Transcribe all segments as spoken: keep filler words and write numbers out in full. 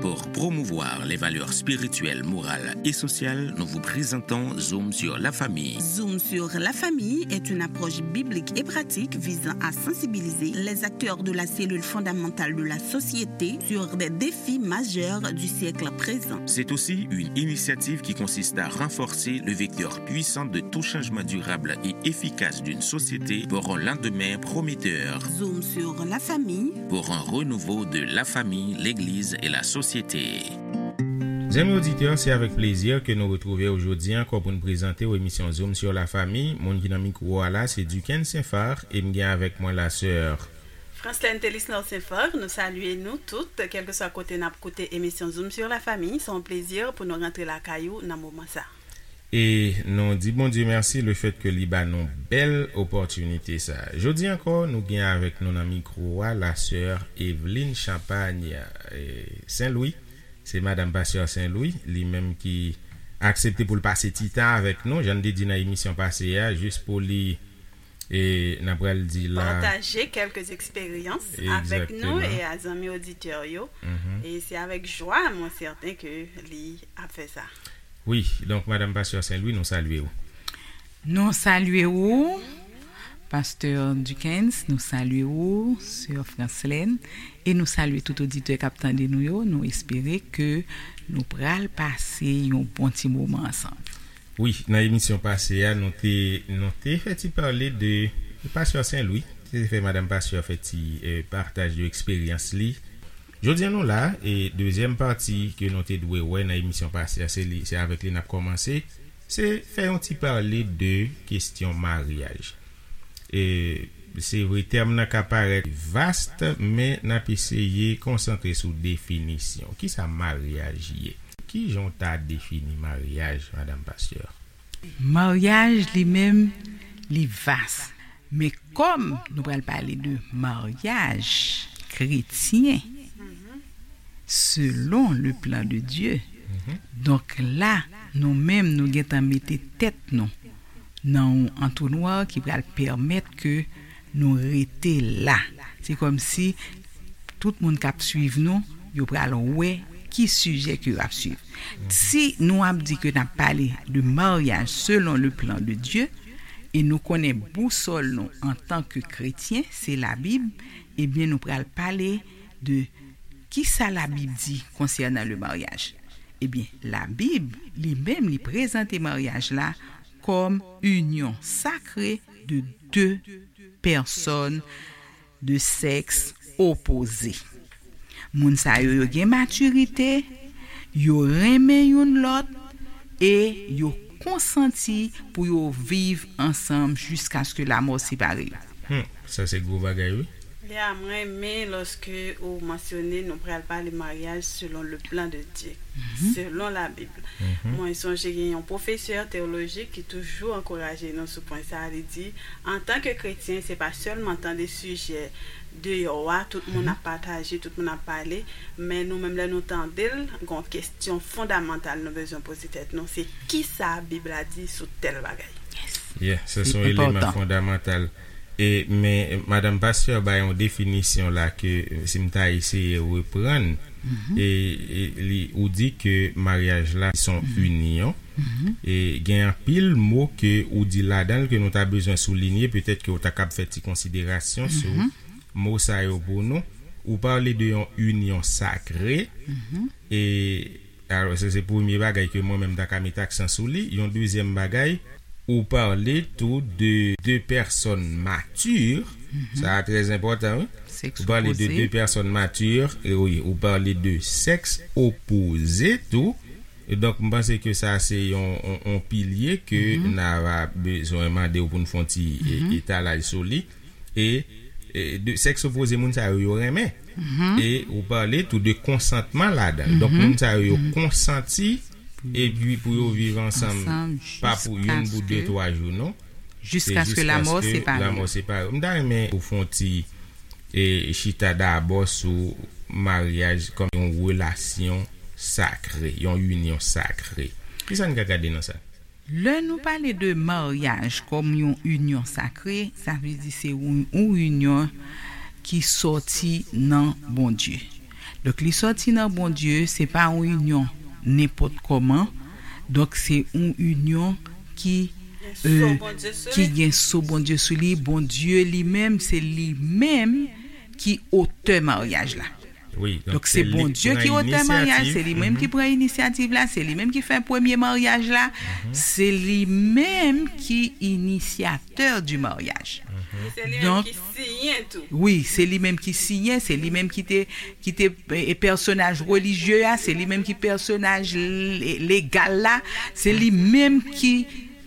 Pour promouvoir les valeurs spirituelles, morales et sociales, nous vous présentons Zoom sur la famille. Zoom sur la famille est une approche biblique et pratique visant à sensibiliser les acteurs de la cellule fondamentale de la société sur des défis majeurs du siècle présent. C'est aussi une initiative qui consiste à renforcer le vecteur puissant de tout changement durable et efficace d'une société pour un lendemain prometteur. Zoom sur la famille. Pour un renouveau de la famille, l'église et la société. Zanmi oditè, se avèk plezi ke nou retwouve w jodi ankò pou n prezante w emisyon Zoom sur la famille. Moun ki nan mikwo a la, se Duckens Saint-Phar, e m gen avèk mwen la sè Franslène Telisnor Saint-Phar, nou salye nou tout, kèlkeswa kote n ap koute emisyon Zoom sur la famille. Se yon plezi pou nou rantre lakay ou nan moman sa. E nou di Bondye mèsi le fèt ke li ba nou bèl opòtinite sa. Jodi ankò, nou gen avèk nou nan mikwo a la sè Evelyne Champagne, eh, Saint-Louis. Se madanm pastè Saint-Louis, li menm ki aksepte pou l pase ti tan avèk nou, jan n te di nan emisyon pase a, jis pou li, e, n ap pral di la. Pataje kèlke eksperyans avèk nou Egzakteman. E a zanmi oditè yo. Mhm. E se avèk jwa, mwen sèten ke li ap fè sa. Wi, donk, madanm pastè Saint-Louis, nou salye w. Nou salye w, pastè Duckens, nou salye w, sè Franslène, e nou salye tout oditè k ap tande nou yo. Nou espere ke nou pral pase yon bon ti moman ansanm. Wi, nan emisyon pase a, nou te, nou te fè ti pale de, pastè Saint-Louis, te fè madanm pastè fè ti, eh, pataj de eksperyans li. Jodi a nou la, e dezyèm pati ke nou te dwe wè nan emisyon pase a, se li, se avèk li n ap kòmanse. Se fè yon ti pale de kesyon maryaj. E se vre, tèm nan ka parèt vast, men n ap eseye konsantre sou definisyon. Kisa maryaj ye? Kijan w ta defini maryaj, madanm pastè? Maryaj li menm, li vas. Men kòm nou pral pale de maryaj kretyen, selon le plan de Dieu, donk la, nou menm, nou gentan mete tèt nou nan yon antonwa ki pral pèmèt ke nou rete la. Se kòmsi tout moun k ap swiv nou, yo pral wè ki sijè ke yo ap swiv. Si nou ap di ke n ap pale de maryaj selon le plan de Dieu, e nou konnen bousòl nou antanke kretyen, se Labib, ebyen, nou pral pale de kisa Labib di konsènan le maryaj. Ebyen, Labib, li menm, li prezante maryaj la kòm inyon sakre de de pèsòn de sèks opoze. Moun sa yo, yo gen matirite, yo renmen youn lòt, e yo konsanti pou yo viv ansanm jiskaske lamò separe yo. Hmm, sa se gwo bagay, wi. Ya, mwen renmen lòske ou mansyone nou pral pale maryaj selon le plan de Dieu, selon Labib. Mwen sonje gen yon pwofesè teyoloji ki toujou ankouraje nou sou pwen sa a. Li di, antanke kretyen, se pa sèlman tande sijè deyò a, tout moun ap pataje, tout moun ap pale, men nou menm, lè nou tande l, gen yon kesyon fondamantal nou bezwen poze tèt nou, se kisa Bib la di sou tèl bagay? Yeah, sa se yon eleman fondamantal. E, men, madanm pastè bay yon definisyon la ke, si m ta eseye reprann, e, e, li, ou di ke maryaj la se yon inyon. E gen anpil mo ke ou di ladan l ke nou ta bezwen soulinye, petèt ke ou ta kab fè ti konsiderasyon sou mo sa yo pou nou. Ou pale de yon inyon sakre, e, alò, se, se premye bagay ke mwen menm ta ka met aksan sou li. Yon dezyèm bagay, ou pale tou de de pèsòn mati. Sa a trè enpòtan, wi. Ou pale de de pèsòn mati, e wi, ou pale de sèks opoze tou. E donk, m panse ke sa se yon, yon, yon pilye ke n a va bezwen mande w pou n fè yon ti, e, etalaj sou li. E, e de sèks opoze, moun sa yo, yo renmen. E ou pale tou de konsantman ladan l. Donk, moun sa yo, yo konsanti, epi pou yo viv ansanm, pa pou youn, pou de, twa jou, non. Jiskaske lamò separe yo. Lamò separe yo. M ta renmen ou fè yon ti, e, chita dabò sou maryaj kòm yon relasyon sakre, yon inyon sakre. Kisa n ka gade nan sa? Lè nou pale de maryaj kòm yon inyon sakre, sa vle di se yon, yon inyon ki sòti nan Bondye. Donk, li sòti nan Bondye, se pa yon inyon nenpòt kòman. Donk, se yon inyon ki, Gen so euh, Bondye sou ki li. Gen so Bondye sou li. Bondye li menm, se li menm ki otè maryaj la. Wi, Donk, se Bondye ki otè maryaj, se li menm ki pran inisyativ la, se li menm ki fè premye maryaj la, se li menm ki inisyatè di maryaj. Se li menm Donk, ki siyen tou. Wi, se li menm ki siyen, se li menm ki te, ki te e, pèsonaj relijye a, se li menm ki pèsonaj le- legal la, se li menm ki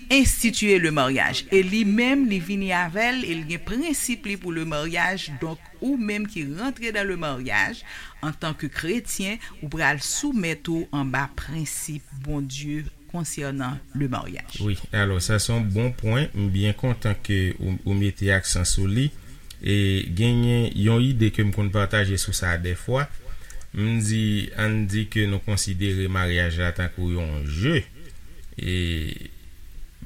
enstitiye le maryaj. E li menm, li vini avè l, e l gen prensip li pou le maryaj. Donk, ou menm ki rantre dan le maryaj, antan ke kretyen, ou pral soumèt ou anba prensip Bondye konsènan le maryaj. Wi, alò sa se yon bon pwen. M byen kontan ke ou, ou mete aksan sou li. E genyen yon ide ke m konn pataje sou sa dèfwa. M di, ann di ke nou konsidere maryaj la tankou yon je. E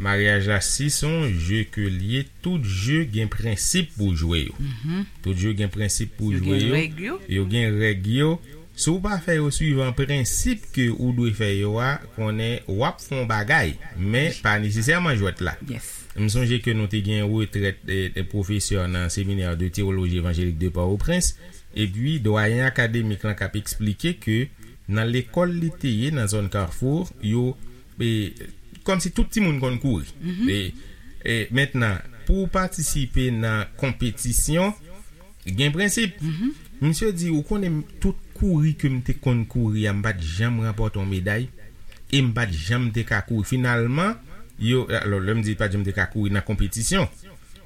maryaj la, si se yon je ke l ye, tout je gen prensip pou jwe yo. Tout je gen prensip pou Yo jwe gen yo. Règ yo. Yo gen règ yo. Si w pa fè yo swivan prensip ke ou dwe fè yo a, konnen w ap fè yon bagay, men pa nesesèman jwèt la. Yes. M sonje ke nou te gen retrèt e, e pwofesè nan Seminè de Teyoloji Evanjelik de Pòtoprens, epi dwayen akademik lan k ap eksplike ke nan lekòl li te ye nan zòn Kafou, yo e, kòmsi tout timoun konn kouri. E, e mentnan, pou w patisipe nan konpetisyon, gen prensip. Misye di, ou konnen tout kouri ke m te konn kouri a, m pa t janm ranpòte yon meday, e m pa t janm te ka kouri. Finalman, yo, alò, lè m di pa t janm te ka kouri nan konpetisyon,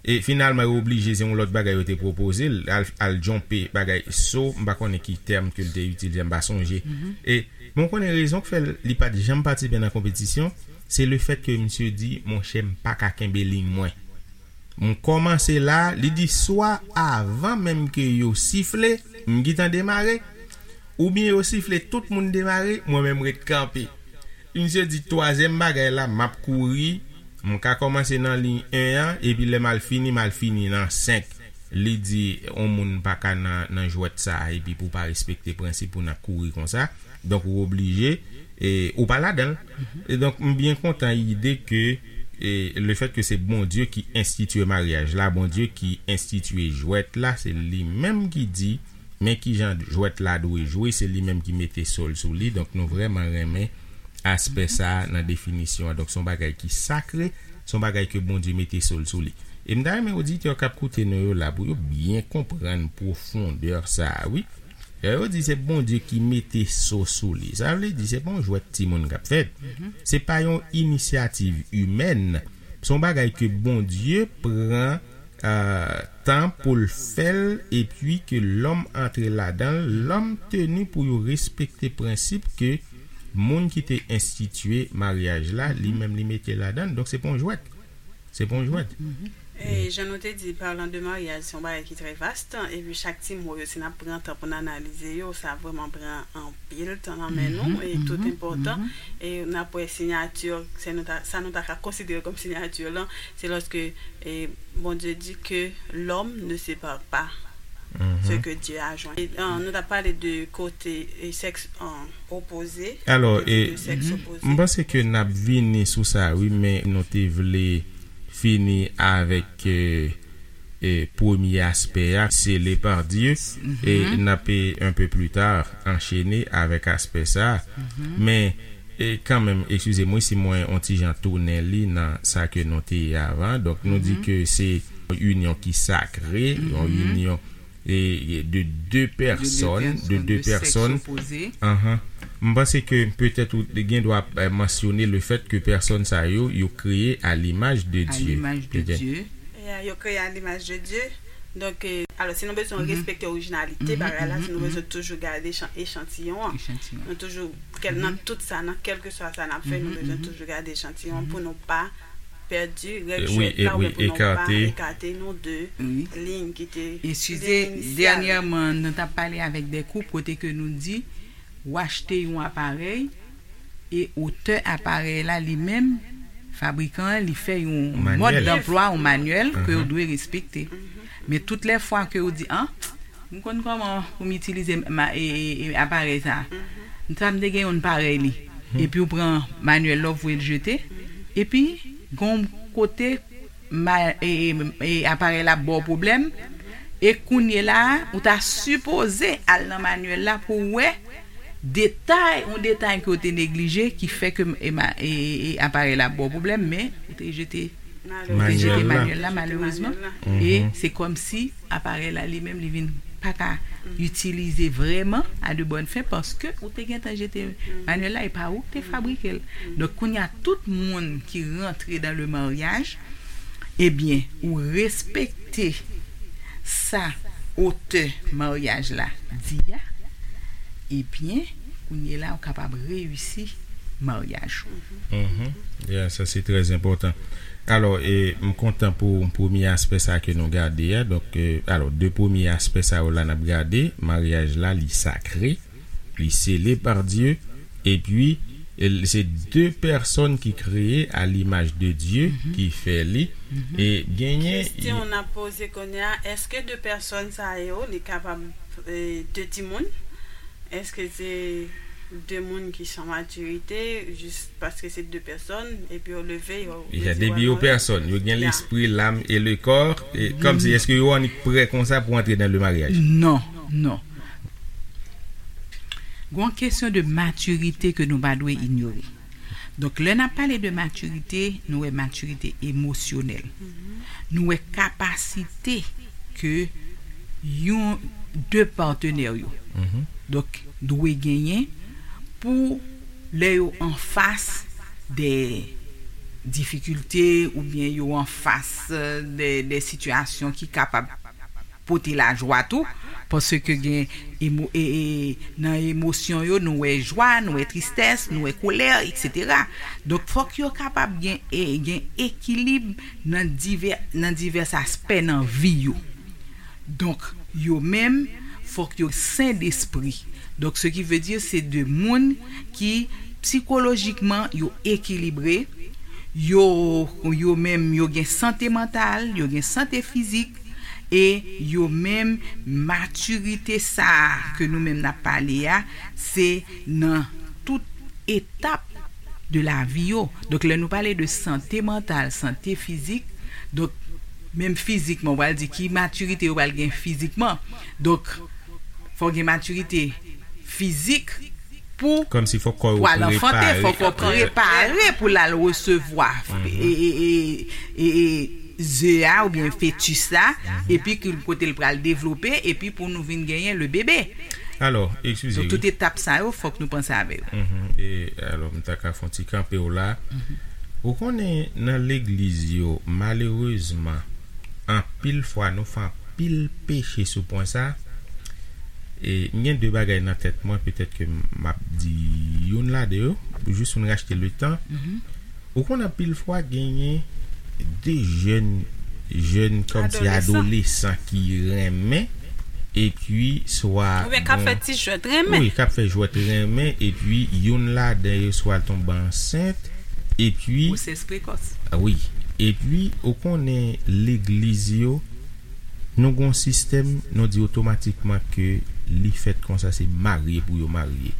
e finalman, yo oblije, se yon lòt bagay yo te pwopoze l, al, al djonpe bagay so, m pa konnen ki tèm ke l te itilize, m pa sonje. E, men w konnen rezon k fè l, li pa t janm patisipe nan konpetisyon, se lefèt ke misye di, monchè, m pa ka kenbe liy mwen. M kòmanse la, li di swa avan menm ke yo sifle, m gentan demare, oubyen yo sifle, tout moun demare, mwen menm ret kanpe. Misye di twazyèm bagay la, m ap kouri, m ka kòmanse nan liy en an, epi lè m al fini, m al fini nan senk. Li di, yon moun pa ka nan, nan jwèt sa a, epi pou w pa respekte prensip ou nan kouri konsa, donk ou oblije, e, ou pa ladan l. E donk, m byen kontan ide ke, e, lefèt ke se Bondye ki enstitiye maryaj la, Bondye ki enstitiye jwèt la, se li menm ki di, men kijan jwèt la dwe jwe, se li menm ki mete so l sou li. Donk, nou vrèman renmen aspè sa a nan definisyon an. Donk, se yon bagay ki sakre, se yon bagay ke Bondye mete so l sou li. E m ta renmen oditè k ap koute nou yo la, pou yo byen konprann pwofondè sa a, wi. Lè yo di se Bondye ki mete so sou li, sa vle di se pa yon jwèt timoun k ap fèt. Se pa yon inisyativ imèn. Se yon bagay ke Bondye pran euh, tan pou l fè l, epi ke lòm antre ladan l, lòm teni pou yo respekte prensip ke moun ki te enstitiye maryaj la, li menm li mete ladan l. Donk, se pa yon jwèt. Se pa yon jwèt. E jan nou te di, parlant de mariage, se yon bagay ki trè vast, epi chak ti mo yo, si n ap pran tan pou n analize yo, sa vrèman pran anpil tan nan men nou, e tout enpòtan. E n ap wè siyati, se nou ta, sa nou ta ka konsidere kòm siyati lan, se lòske e Bondye di ke l'homme ne sépare pas ce que Dieu a joint. E, euh, nou ta pale de kote e sèks euh, opoze. Alò, de, e, de sèks opoze. M panse ke n ap vini sou sa, wi, men nou te vle fini avèk e, e, premye aspè a, scellé par Dieu, e n ap e, un peu plus tard, anchene avèk aspè sa. Men, e, kanmenm, eskize m, wi, si mwen on ti jan tounen li nan sa ke nou te ye avan. Donk, nou di ke se inyon ki sakre, yon inyon e, e, de de pèsòn, de de pèsòn. Anhan. M panse ke petèt ou gen dwa eh, mansyone le fèt ke pèsòn sa yo, yo kreye à l'image de À Dieu. L'image de Dieu. Ya, yo kreye à l'image de Dieu. Donk, e, alò, si nou bezwen respekte orijinalite bagay la, si nou bezwen toujou gade echan- echantiyon an, Echantiyon. Nou toujou, kèl, nan tout sa, nan kèlkeswa sa n ap fè, nou bezwen toujou gade echantiyon an pou nou pa pèdi règ E, wi, jwèt la, e, wi, oubyen pou nou pa ekate. Ekate nou de Wi. Liy ki te Eskize, liy inisyal. Dènyèman, nou t ap pale avèk de koup kote ke nou di, ou achte yon aparèy, e otè aparèy la, li menm, fabrikan an, li fè yon Manyèl. mòd danplwa, yon manyèl ke ou dwe respekte. Men tout lè fwa ke ou di, an, M konn kòman pou m itilize ma, e, e, e, aparèy sa a. M sa m te gen youn parèy li. Epi ou pran manyèl la, ou voye l jete. Epi, gon kote, ma, e, e, e, aparèy la ba w pwoblèm. E kounye la a, ou ta sipoze al nan manyèl la pou w wè detay, yon detay ke w te neglije ki fè ke, e, ma, e, e, e aparèy la ba w pwoblèm, men ou te jete, ou te jete manyèl la, malerezman. E se kòmsi aparèy la li menm, li vin pa ka itilize vrèman a de bòn fen, paske ou te gentan jete manyèl la, e pa ou ki te fabrike l. Donk, kounye a, tout moun ki rantre dans le mariage, ebyen, ou respekte sa otè maryaj la di a, ebyen, kounye la, ou kapab reyisi maryaj ou. Mhm. Yeah, sa se trè enpòtan. Alò, e, m kontan pou premye aspè sa ke nou gade a. Donk, e, alò, de premye aspè sa yo la n ap gade, maryaj la, li sakre, li sele pa Dye, epi, e, se de pèsòn ki kreye a limaj de Dye ki fè li, e genyen. Kesyon n ap poze kounye a, èske de pèsòn sa yo, li kapab, e, de timoun? Èske se de moun ki san matirite, jis paske se de pèsòn, epi yo leve, yo, yo di, depi yo pèsòn, yo gen lespri, lam e le kò, e kòmsi, èske yo annik prè konsa pou antre nan le maryaj? Non, non. Gon kesyon de matirite ke nou pa dwe inyore. Donk, lè n ap pale de matirite, nou wè matirite emosyonèl. Nou wè kapasite ke yon, de patenè yo, donk, dwe genyen pou lè yo anfas de difikilte oubyen yo anfas, e, de, de sitiyasyon ki kapab pote lajwa tou, paske gen emo, e, e, nan emosyon yo, nou wè jwa, nou wè tristès, nou wè kolè, etsetera. Donk, fòk yo kapab gen, e, gen ekilib nan divè, nan divès aspè nan vi yo. Donk, yo menm, fòk yo sen despri. Donk, ce qui veut dire, se de moun ki sikolojikman yo ekilibre, yo, yo menm, yo gen sante mantal, yo gen sante fizik, e yo menm, matirite sa a ke nou menm n ap pale a, se nan tout etap de lavi yo. Donk, lè nou pale de sante mantal, sante fizik, donk, menm fizikman, ou pral di ki matirite yo pral gen fizikman. Donk, fò gen matirite fizik pou, kòmsi fòk kò yo pou al anfante, prepare, fòk kò prepare pou l al resevwa, e, e, e, e, e, ze a oubyen fetis la, epi ki kote l pral devlope, epi pou nou vin genyen le bebe. Alò, eskize, donk, wi, tout etap sa yo, fòk nou panse avè yo. Mhm. E, alò, m ta ka fè yon ti kanpe w la. Mhm. Ou konnen, nan legliz yo, malerezman, anpil fwa, nou fè anpil peche sou pwen sa. E, m gen de bagay nan tèt mwen, petèt ke m ap di youn ladan yo, jis pou n rachte le tan. Mhm. Ou konn anpil fwa genyen de jèn, jèn kòmsi adolesan ki renmen, epi swa oubyen k ap fè ti jwèt renmen. Wi, k ap fè jwèt renmen, epi youn ladan yo swa l tonbe ansent, epi gwosès prekòs. Wi, epi ou konnen legliz yo, nou gon sistèm, nou di otomatikman ke li fèt konsa, se marye pou yo marye.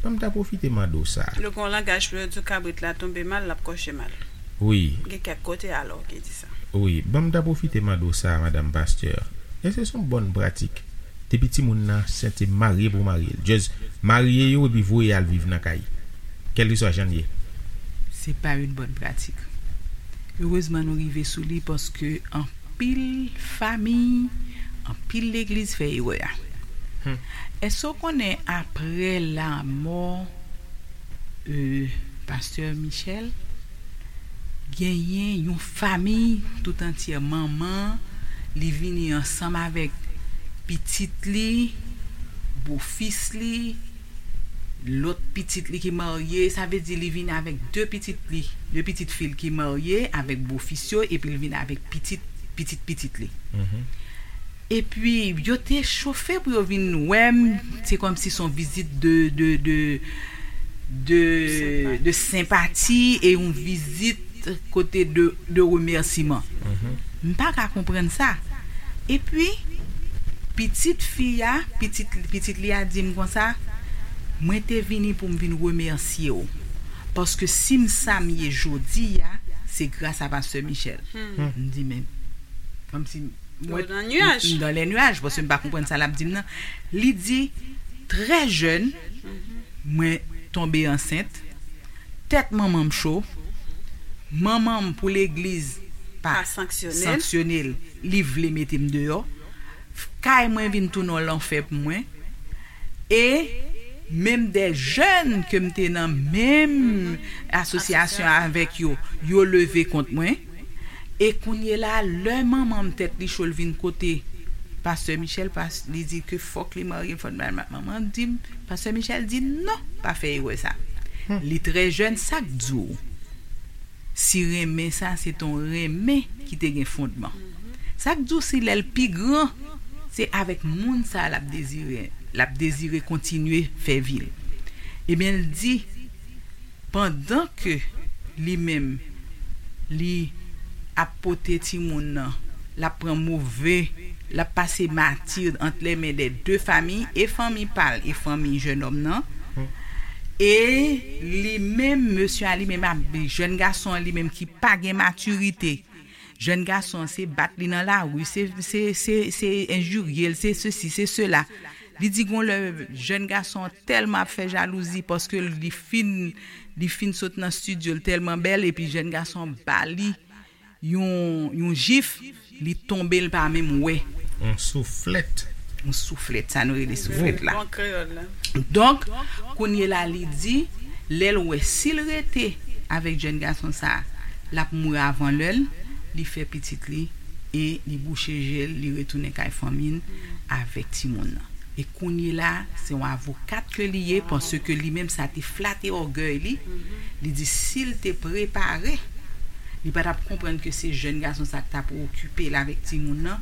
Ban m ta pwofite mande w sa. Yo gon langaj pou yo di w kabrit la tonbe mal, l ap kòche mal. Wi. Gen kèk kote alò ki di sa. Wi, ban m ta pwofite mande w sa, madanm pastè. Èske se yon bòn pratik? Depi timoun nan ansent, se marye pou marye l. Just marye yo epi voye al viv nan kay. Kèlkeswa jan l ye. Se pa yon bòn pratik. Erezman nou rive sou li paske anpil fanmi, anpil legliz fè erè a. Hmm. Èske w konnen apre lanmò, e, pastè Michel, genyen yon fanmi tout antyè, manman, li vini ansanm avèk pitit li, bofis li, lòt pitit li ki marye, sa vle di li vini avèk de pitit li, de pitit fi l ki marye avèk bofis yo, epi l vini avèk pitit, pitit pitit li. Mhm. Epi, yo te chofe pou yo vin wè m, se kòmsi se yon vizit de, de, de, de, de senpati e yon vizit kote de, de remèsiman. Mhm. M pa ka konprann sa. Epi, Pitit fi a, pitit, pitit li a di m konsa, mwen te vini pou m vin remèsye w. Paske si m sa m ye jodi a, se gras a Pastè Michel. M di, men, kòmsi mwen, m dan lè nyaj, paske m pa konprann sa l ap di m nan. Li di, trè jèn, mwen tonbe ansent, tèt manman m cho, manman m pou legliz pa sanksyone l, li vle mete m deyò, kay mwen vin tounen yon lanfè pou mwen, e menm de jèn ke m te nan menm asosyasyon avèk yo, yo leve kont mwen, e kounye la, lè manman m tèt li cho, l vin kote Pastè Michel, pas, li di ke fòk li marye, fòk manman di m, Pastè Michel di non, pa fè erè sa. Li trè jèn, sa k di w si renmen sa se t on renmen ki te gen fondman? Sa k di w si lè l pi gran, se avèk moun sa l ap dezire, l ap dezire kontinye fè vi l? Ebyen, l di, pandan ke li menm, li ap pote timoun nan, l ap pran move, l ap pase mati ant lè men dè de fanmi, e fanmi pa l, e fanmi jennonm nan. E li menm, mesye a li menm ap, jèn gason an li menm ki pa gen matirite. Jèn gason an se bat li nan lari, se, se, se, se enjirye l, se sesi, se sela. Li di gon lè jèn gason an tèlman ap fè jalouzi paske li fin, li fin sot nan estidyo, l tèlman bèl, epi jèn gason an ba li yon, yon jif, li tonbe, l pa menm wè. Yon souflèt. Yon souflèt, sa nou rele souflèt la. Bon kreyòl la. Donk, kounye la, li di, lè l wè si l rete avèk jèn gason sa, l ap mouri avan lè l, li fè pitit li e li bouche je l, li retounen kay fanmi l avèk timoun nan. E kounye la, se yon avokat ke li ye, paske li menm sa te flate ògèy li. Li di si l te prepare, li pa t ap konprann ke se jèn gason sa k t ap okipe l avèk timoun nan,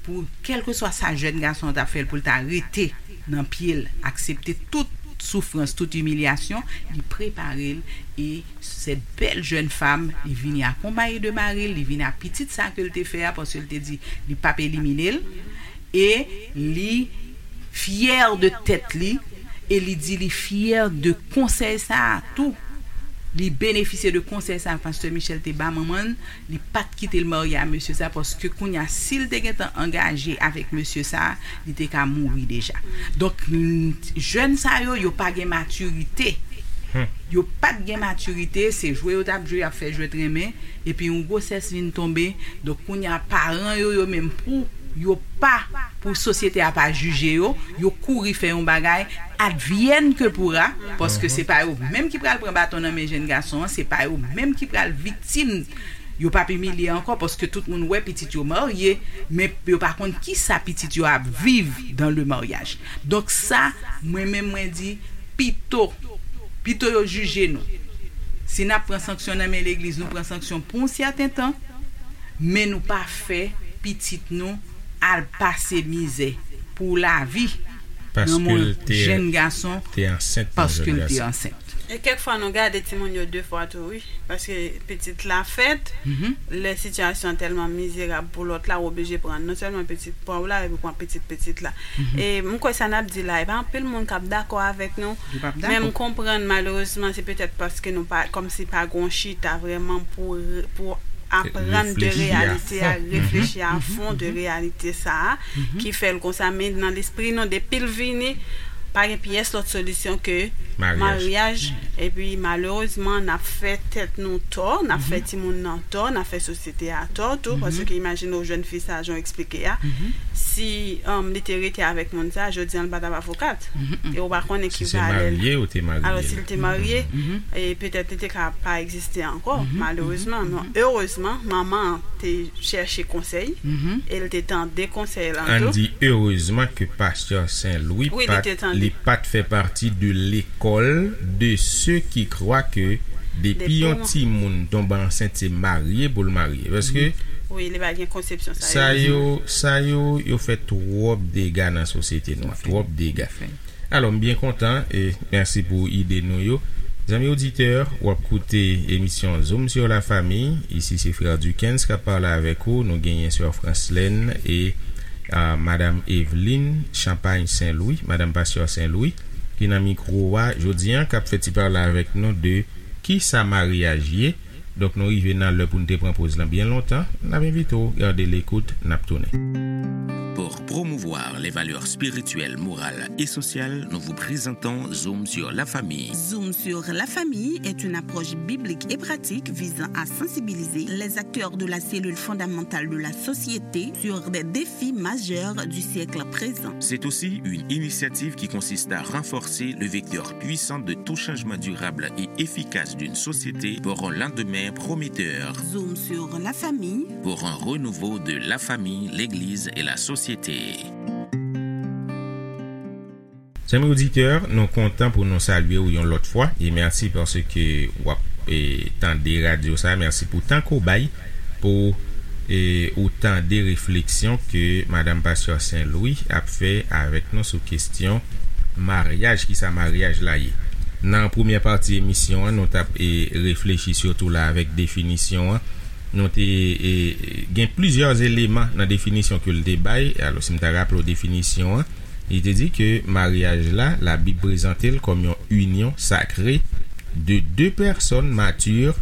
pou kèlkeswa sa jèn gason an t ap fè l, pou l ta rete nan pye l, aksepte tout soufrans, tout imilyasyon, li prepare l, e sèt bèl jèn fanm, li vini akonpaye de mari l, li vini ak pitit sa ke l te fè a, paske l te di li p ap elimine l, e li fyè de tèt li, e li di li fyè de konsèy sa a tou. Li benefisye de konsèy sa a Pastè Michel te ba manman l, li pa t kite l marye a mesye sa, paske kounye a, si l te gentan angaje avèk mesye sa, li te ka mouri deja. Donk, mm, jèn sa yo, yo pa gen matirite. Yo pa t gen matirite, se jwe yo t ap jwe, y ap fè jwèt renmen, epi yon gwosès vin tonbe. Donk, kounye a, paran yo, yo menm pou yo pa, pou sosyete a pa jije yo, yo kouri fè yon bagay, advienne que pourra, paske se pa yo menm ki pral pran baton nan men jèn gason an, se pa yo menm ki pral viktim. Yo p ap imilye ankò, paske tout moun wè pitit yo marye, men yo pa konn kisa pitit yo ap viv dans le mariage. Donk sa, mwen menm, mwen di, pito, pito yo jije nou. Si n ap pran sanksyon nan men legliz, nou pran sanksyon pou yon sèten tan, men nou pa fè pitit nou al pase mizè pou lavi nan men yon jèn gason paske l te ansent. E kèk fwa nou gade timoun yo de fwa tou, wi. Paske pitit la fèt, lè sitiyasyon an tèlman mizerab pou lòt la, ou oblije pran non sèlman pitit pa w la, epi pran pitit pitit la. E m kwè sa n ap di la, e pa anpil moun k ap dakò avèk nou, men m konprann malerezman se petèt paske nou pa, kòmsi pa gon chita vrèman pou, pou aprann de reyalite a, reflechi a fon de reyalite sa a, ki fè l konsa, men nan lespri nou, depi l vini, pa gen pyès lòt solisyon ke maryaj. Epi malerezman, n ap fè tèt nou tò, n ap fè timoun nan tò, n ap fè sosyete a tò tou, paske imajine w jèn fi sa, jan w eksplike a, si, um, li te rete avèk moun sa, jodi an, li pa t ap avokat. E w pa konnen ki valè l. Alò, si l te marye, e petèt li te ka pa egziste ankò, malerezman. Men erezman, manman an te chèche konsèy, e l te tande konsèy lan tou. Ann di erezman ke pastè Sen Lwi pa t, li pa t fè pati de lekòl de se ki krwa ke depi yon timoun tonbe ansent, se marye pou l marye. Paske wi, li pa gen konsepsyon sa yo, sa yo, yo fè twòp dega nan sosyete nou an, twòp dega. Alò, m byen kontan, e mèsi pou ide nou yo. Zanmi oditè, w ap koute emisyon Zoom sur la famille. Isi se frè Duckens k ap pale avèk ou. Nou genyen sè Franslèn e A, Madanm Eveline Champagne Saint Louis, Madanm Pastè Saint Louis, ki nan mikwo a jodi a, k ap fè ti pale avèk nou de ki sa maryaj ye. Donk, nou rive nan lè pou n te pran poz lan byen lontan. N ap envite w gade lekout, n ap tounen. Pour promouvoir les valeurs spirituelles, morales et sociales, nous vous présentons Zoom sur la famille. Zoom sur la famille est une approche biblique et pratique visant à sensibiliser les acteurs de la cellule fondamentale de la société sur des défis majeurs du siècle présent. C'est aussi une initiative qui consiste à renforcer le vecteur puissant de tout changement durable et efficace d'une société pour un lendemain prometteur. Zoom sur la famille. Pour un renouveau de la famille, l'Église et la société. Zanmi oditè, nou kontan pou nou salye w yon lòt fwa e mèsi paske w ap, e, tande radyo sa. Mèsi pou tan ke w bay pou, e, ou tande refleksyon ke Madanm Pastè Saint Louis ap fè avèk nou sou kesyon maryaj, ki sa maryaj la ye. Nan premyè pati emisyon an, nou t ap, e, reflechi sitou la avèk definisyon an. Nou te, e, gen plizyè eleman nan definisyon ke l te bay. Alò, si m ta raple w definisyon an, li te di ke maryaj la, Labib prezante l kòm yon inyon sakre de de pèsòn matir,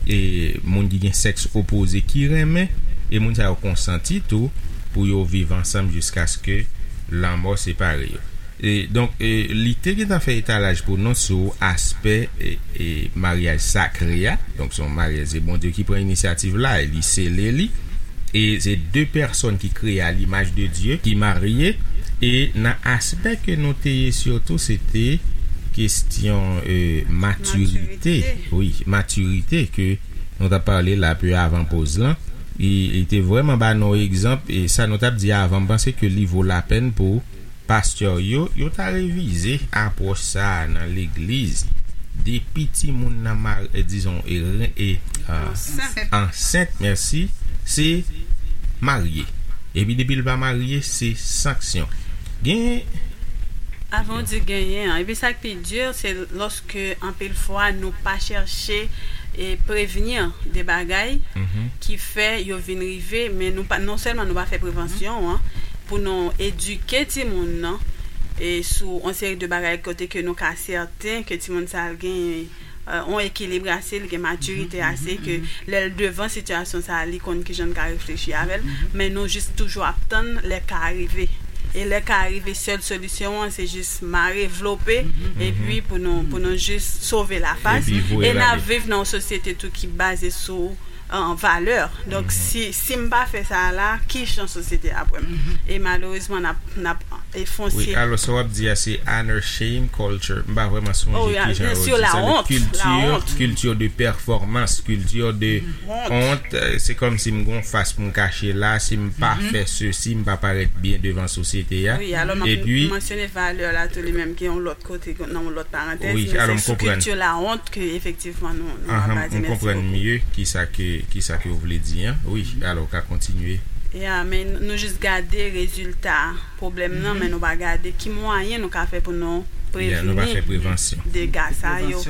e moun ki gen sèks opoze ki renmen, e moun sa yo konsanti tou pou yo viv ansanm jiskaske lanmò separe yo. E, donk, e, li te gentan fè etalaj pou nou sou aspè, e, e, maryaj sakre a. Donk, se yon maryaj, se Bondye ki pran inisyativ la, e li sele li. E se de pèsòn ki kreye a limaj de Dye, ki marye. E nan aspè ke nou te ye sitou, se te kesyon, e, matirite. Matirite. Wi, matirite ke nou t ap pale la pe avan poz lan. Li, li te vrèman ba nou egzanp, e sa nou t ap di avan, m panse ke li vo lapèn pou pastè yo, yo ta revize apwòch sa a nan legliz. Depi timoun nan mar-, e, dizon, e, ren-, e, a, ansent, mèsi, se marye. Epi depi l pa marye, se sanksyon. Gen Avan w di genyen an. Epi sa k pi di, se lòske anpil fwa nou pa chèche e prevni de bagay ki fè yo vin rive, men nou pa, non sèlman nou pa fè prevansyon an, pou nou edike timoun nan, e sou yon seri de bagay kote ke nou ka sèten ke timoun sa a gen, e, yon ekilib ase, li gen matirite ase, ke lè l devan sitiyasyon sa a, li konn kijan l ka reflechi avè l, men nou jis toujou ap tann lè ka a rive. E lè ka a rive, sèl solisyon an, se jis mare, vlope, epi pou nou, pou nou jis sove lafas. Epi voye l ale. E n ap viv nan yon sosyete tou ki baze sou, e, valè. Donk, si, si m pa fè sa a la, ki jan sosyete a ap wè m? E malerezman, n ap, n ap, e, fon Wi, sye alò, sa w ap di a, se honor shame culture. M pa vrèman sonje ki jan yo di sa. Sur la honte, la honte. Kilti, kilti de pèfòmans, kilti de wont. E, se kòmsi m gon fas pou m kache la, si m pa fè sesi, m pa parèt byen devan sosyete a. Wi, alò, m ap mansyone valè la tou li menm, ki yon lòt kote, nan yon lòt parantèz, wi, men alò, se sou kilti la honte ke efektivman nou, nou ap baze. Mèsi bokou. M konprann mye kisa ke, kisa ke w vle di an. Wi, alò, w ka kontinye. Ya, men nou jis gade rezilta pwoblèm nan, men nou pa gade ki mwayen nou ka fè pou nou prevni dega sa yo.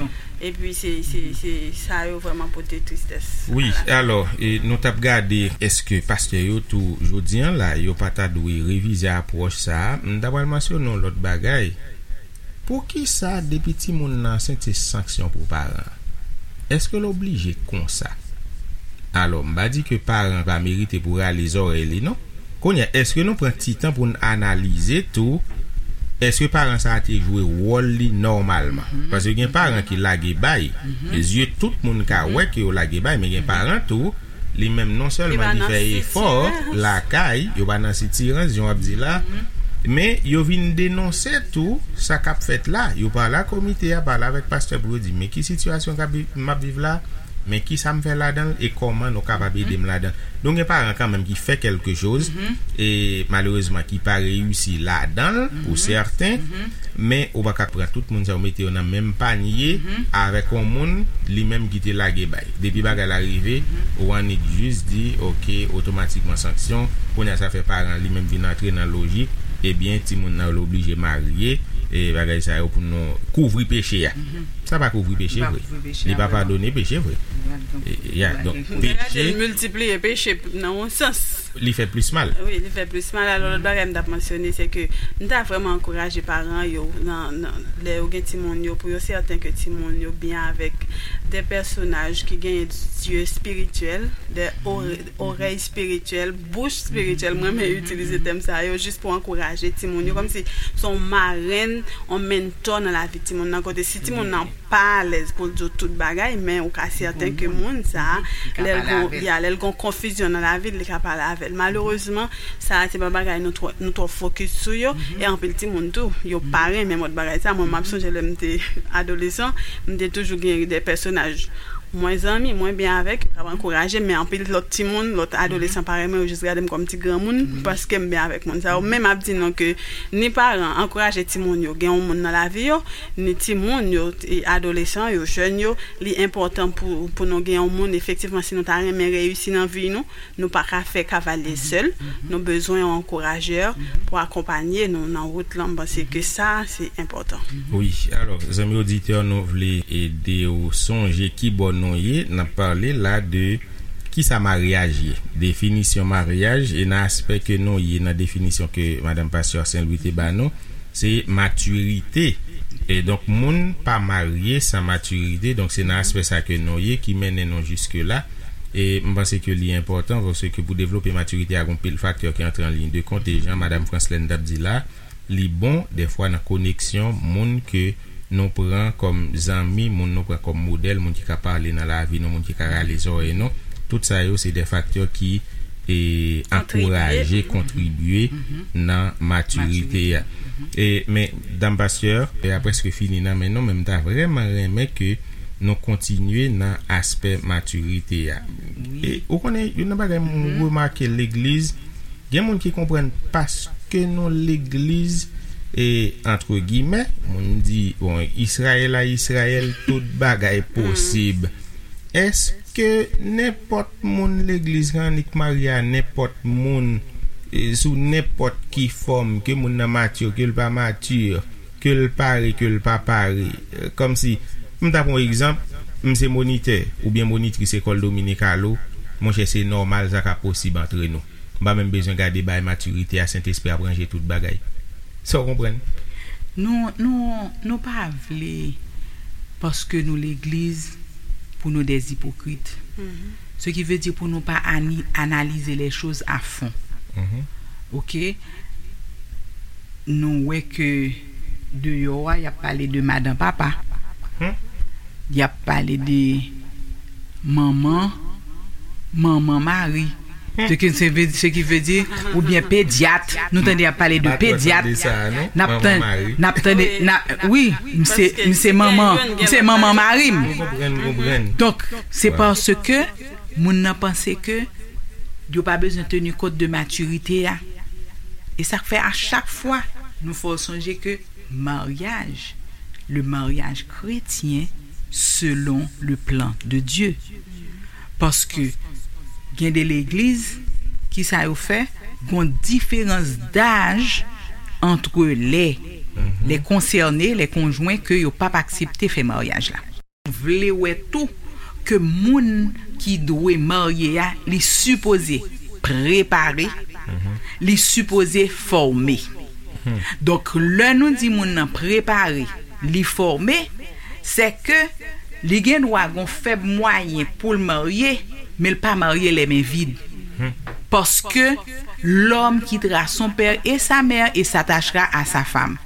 Epi se, se, se sa yo vrèman pote tristès. Wi, alò, e nou t ap gade, èske pastè yo tou, jodi an la, yo pa ta dwe revize apwòch sa a? M ta pral mansyone yon lòt bagay. Poukisa depi timoun nan ansent se sanksyon pou paran an? Èske l oblije konsa? Alò, m pa di ke paran pa merite pou rale zòrèy li, non. Kounye a, èske nou pran ti tan pou n analize tou, èske paran sa a te jwe wòl li nòmalman? Paske gen paran ki lage bay. Zye tout moun ka wè ke yo lage bay, men gen paran tou, li menm non sèlman li fè efò lakay, yo pa nan sitirans, jan w ap di la, men yo vin denonse tou sa k ap fèt la. Yo pale a komite a, pale avèk pastè pou yo di, men ki sitiyasyon k ap vi-, m ap viv la, men kisa m fè ladan l e kòman nou kapab ede m ladan l. Donk, gen paran kanmenm ki fè kèlke choz, e malerezman ki pa reyisi ladan l pou sèten, men ou pa ka pran tout moun sa yo mete yo nan menm panye avèk yon moun li menm ki te lage bay. Depi bagay la rive, ou annik jis di, oke, otomatikman sanksyon, kounye a sa fè paran li menm vin antre nan lojik, ebyen, timoun nan l oblije marye, e bagay sa yo pou nou kouvri peche a. Sa pa kouvri peche vre. Li pa padone peche vre. E, ya, donk, peche. Miltipliye peche nan yon sans. Li fè plis mal. Wi, li fè plis mal. Alò, lòt bagay m t ap mansyone, se ke m ta vrèman ankouraje paran yo, nan, nan, lè yo gen timoun yo, pou yo sèten ke timoun yo byen avèk de pèsonaj ki genyen zye espirityèl, de orèy espirityèl, bouch espirityèl. Mwen renmen itilize tèm sa yo jis pou ankouraje timoun yo, kòmsi se yon marenn, yon mentò nan lavi timoun nan, kote si timoun nan pa alèz pou l di w tout bagay, men ou ka sèten ke moun sa a, lè l gon, ya, lè l gon konfizyon nan lavi l, li ka pale avè l. Malerezman, sa a se pa bagay nou twò, nou twò fokis sou yo, e anpil timoun tou, yo pa renmen mòd bagay sa. Mwen, m ap sonje lè m te adolesan, m te toujou gen de pèsonaj mwen zanmi, mwen byen avèk yo, k ap ankouraje m, men anpil lòt timoun, lòt adolesan parèy mwen, yo jis gade m kòm ti granmoun, paske m byen avèk moun sa yo. Men m ap di nou ke ni paran ankouraje timoun yo gen yon moun nan lavi yo, ni timoun yo, e adolesan yo, jèn yo, li enpòtan pou, pou nou gen yon moun, efektivman, si nou ta renmen reyisi nan vi nou, nou pa ka fè kavalye sèl, nou bezwen yon ankourajè pou akonpanye nou nan wout lan. M panse ke sa, se enpòtan. Wi, alò, zanmi oditè, nou vle ede w sonje ki bò nou ye. N ap pale la de kisa maryaj ye, definisyon maryaj, e nan aspè ke nou ye, nan definisyon ke madanm pastè Saint Louis te ba nou, se matirite. E donk, moun pa marye san matirite. Donk, se nan aspè sa ke nou ye ki mennen nou jiske la. E m panse ke li enpòtan, paske pou devlope matirite a, gon pil faktè ki antre an liy de kont. E jan madanm Franslène t ap di la, li bon dèfwa nan koneksyon moun ke nou pran kòm zanmi, moun nou pran kòm modèl, moun ki ka pale nan lavi nou, moun ki ka rale zòrèy nou. Tout sa yo se de faktè ki e ankouraje, kontribye nan matirite a. E, men, dam pastè, e a prèske fini nan men nou, men m ta vrèman renmen ke nou kontinye nan aspè matirite a. E ou konnen, youn nan bagay m remake legliz, gen moun ki konprann paske nou legliz, e, antre gimè, moun di, bon, Izrayèl a Izrayèl, tout bagay posib. Èske nenpòt moun legliz la annik marye a nenpòt moun, e, sou nenpòt ki fòm, ke moun nan mati, ke l pa mati, ke l pare, ke l pa pare? E, kòmsi, m ta pran yon egzanp, m se monitè oubyen monitris lekòl Dominic Halo, monchè, se nòmal, sa ka posib antre nou. M pa menm bezwen gade bay matirite a, Sentespri ap ranje tout bagay. Sa w konprann? Nou, nou, nou pa vle, paske nou legliz, pou nou des hypocrites. Ce qui veut dire pou nou pa ani- analyser les choses à fond. Oke? Nou wè ke deyò a, y ap pale de madan papa. Y ap pale de manman, manman mari. Se ki, se ve, se ki ve di, oubyen pedyat. Nou tande y ap pale de pedyat. N ap tande, n ap tande, n ap, wi, m se, m se manman, m se manman mari m. Donk, se paske moun nan panse ke yo pa bezwen teni kont de matirite a. E sa k fè a chak fwa, nou fè w sonje ke maryaj, le mariage chrétien selon le plan de Dieu. Paske gen de legliz, kisa yo fè? Gon diferans daj antre lè, lè konsène, lè konjwen ke yo p ap aksepte fè maryaj la. Vle wè tou ke moun ki dwe marye a, li sipoze prepare, li sipoze fòme. Donk, lè nou di moun nan prepare, li fòme, se ke li gen dwa gon fèb mwayen pou l marye, men l pa marye lè men vid. Paske l'homme quittera son père et sa mère et s'attachera à sa femme.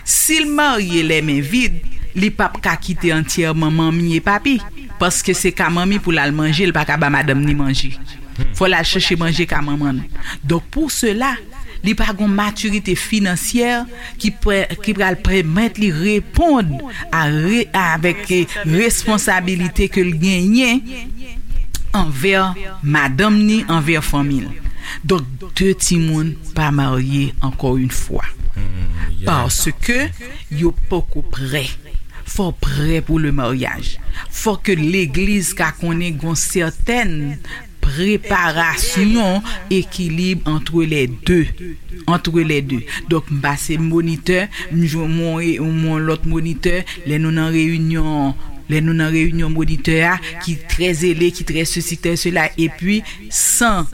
Si l marye lè men vid, li p ap ka kite antyèman manmi e papi, paske se ka manmi pou l al manje, l pa ka ba madanm ni manje. Fò l al chèche manje ka manman l. Donk, pou sela, li pa gon matirite finansyè ki, ki pral pèmèt li reponn a, avèk responsabilite ke l genyen anvè madanm ni, anvè fanmi l. Donk, de timoun pa marye, encore une fois. Paske yo poko prè. Fò prè pou le maryaj. Fò ke legliz ka konnen gon sètèn preparasyon, ekilib antre lè de. Antre lè de. Donk, m pase monitè, m jwenn yon, yon lòt monitè, lè nou nan reyinyon, lè nou nan reyinyon monitè a, ki trè zele, ki trè sesi, trè sela, epi san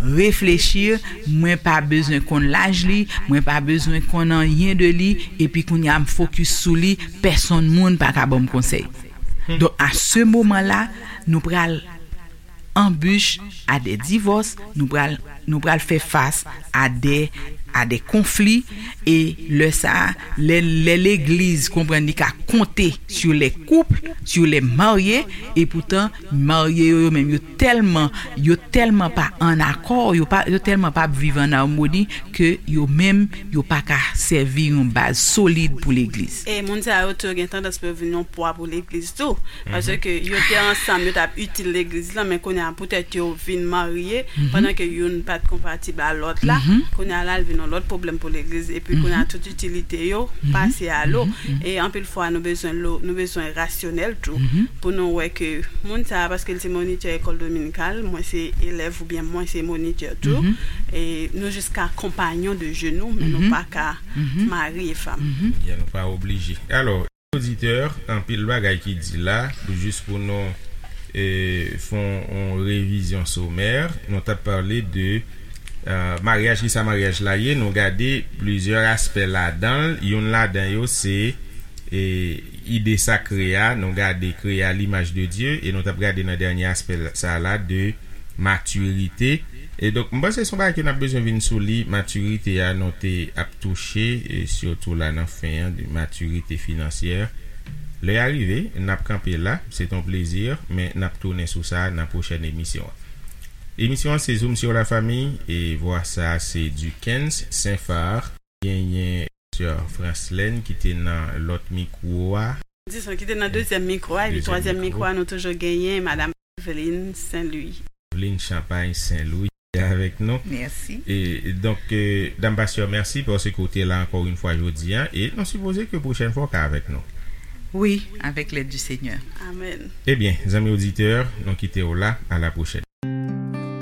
Réfléchir, mwen pa bezwen konn laj li, mwen pa bezwen konn anyen de li, epi kounye a m fokis sou li, pèsonn moun pa ka ban m konsèy. Donk, a se moman la, nou pral anbich a de divòs, nou pral, nou pral fè fas a de, a de konfli, e lè sa, lè, lè legliz konprann li ka konte sur les couples, sur les mariés, e poutan, marye yo, yo menm, yo tèlman, yo tèlman pa an akò, yo pa, yo tèlman pa ap viv an amoni ke yo menm, yo pa ka sèvi yon baz solid pou legliz. E moun sa yo tou gen tandans pou yo vin yon pwa pou legliz tou. Paske yo te ansanm, yo t ap itil legliz la, men kounye a poutèt yo vin marye, pandan ke youn pa t konpatib a lòt la, kounye a la, l vin yon lòt pwoblèm pou legliz, epi kounye a tout itilite yo pase a lo. E anpil fwa, nou bezwen lo, nou bezwen rasyonèl tou, pou nou wè ke moun sa a, paske l se monitè ekòl dominikal, mwen se elèv oubyen mwen se monitè tou, e nou jis ka konpayon de je nou, men nou pa ka mari e fanm. Ya, nou pa oblije. Alò, oditè, anpil bagay ki di la, jis pou nou, e, fè yon, yon revizyon somè, nou t ap pale de, e, maryaj, kisa maryaj la ye, nou gade plizyè aspè ladan l, youn ladan yo se, e, ide sakre a, nou gade kreye à l'image de Dieu, e nou t ap gade nan dènye aspè sa la de matirite. E donk, m panse se yon bagay ke n ap bezwen vin sou li, matirite a, nou te ap touche, e sitou la nan fen an, de matirite finansyè. Lè a rive, n ap kanpe la, se t on plezi, men n ap tounen sou sa nan pwochèn emisyon an. Emisyon an se Zoom sur la famille, e vwa sa se Duckens Saint-Phar, genyen Sè Franslène ki te nan lòt mikwo a. Dizon, ki te nan dezyèm mikwo a, epi twazyèm mikwo a, nou toujou genyen Madam Evelyn Saint-Louis. Evelyn Champagne Saint-Louis ki avèk nou. Mèsi. E donk, e, Dam Pastè, mèsi paske w te la ankò yon fwa jodi a, e nou sipoze ke pwochèn fwa w ka avèk nou. Wi, avec l'aide du Seigneur. Amèn. Ebyen, zanmi oditè, nou kite w la, à la prochaine.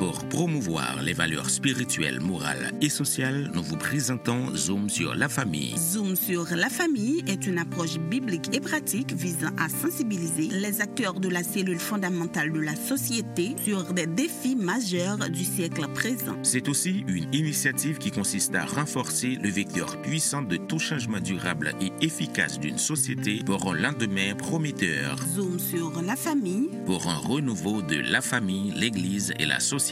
Pour promouvoir les valeurs spirituelles, morales et sociales, nous vous présentons Zoom sur la famille. Zoom sur la famille est une approche biblique et pratique visant à sensibiliser les acteurs de la cellule fondamentale de la société sur des défis majeurs du siècle présent. C'est aussi une initiative qui consiste à renforcer le vecteur puissant de tout changement durable et efficace d'une société pour un lendemain prometteur. Zoom sur la famille. Pour un renouveau de la famille, l'Église et la société.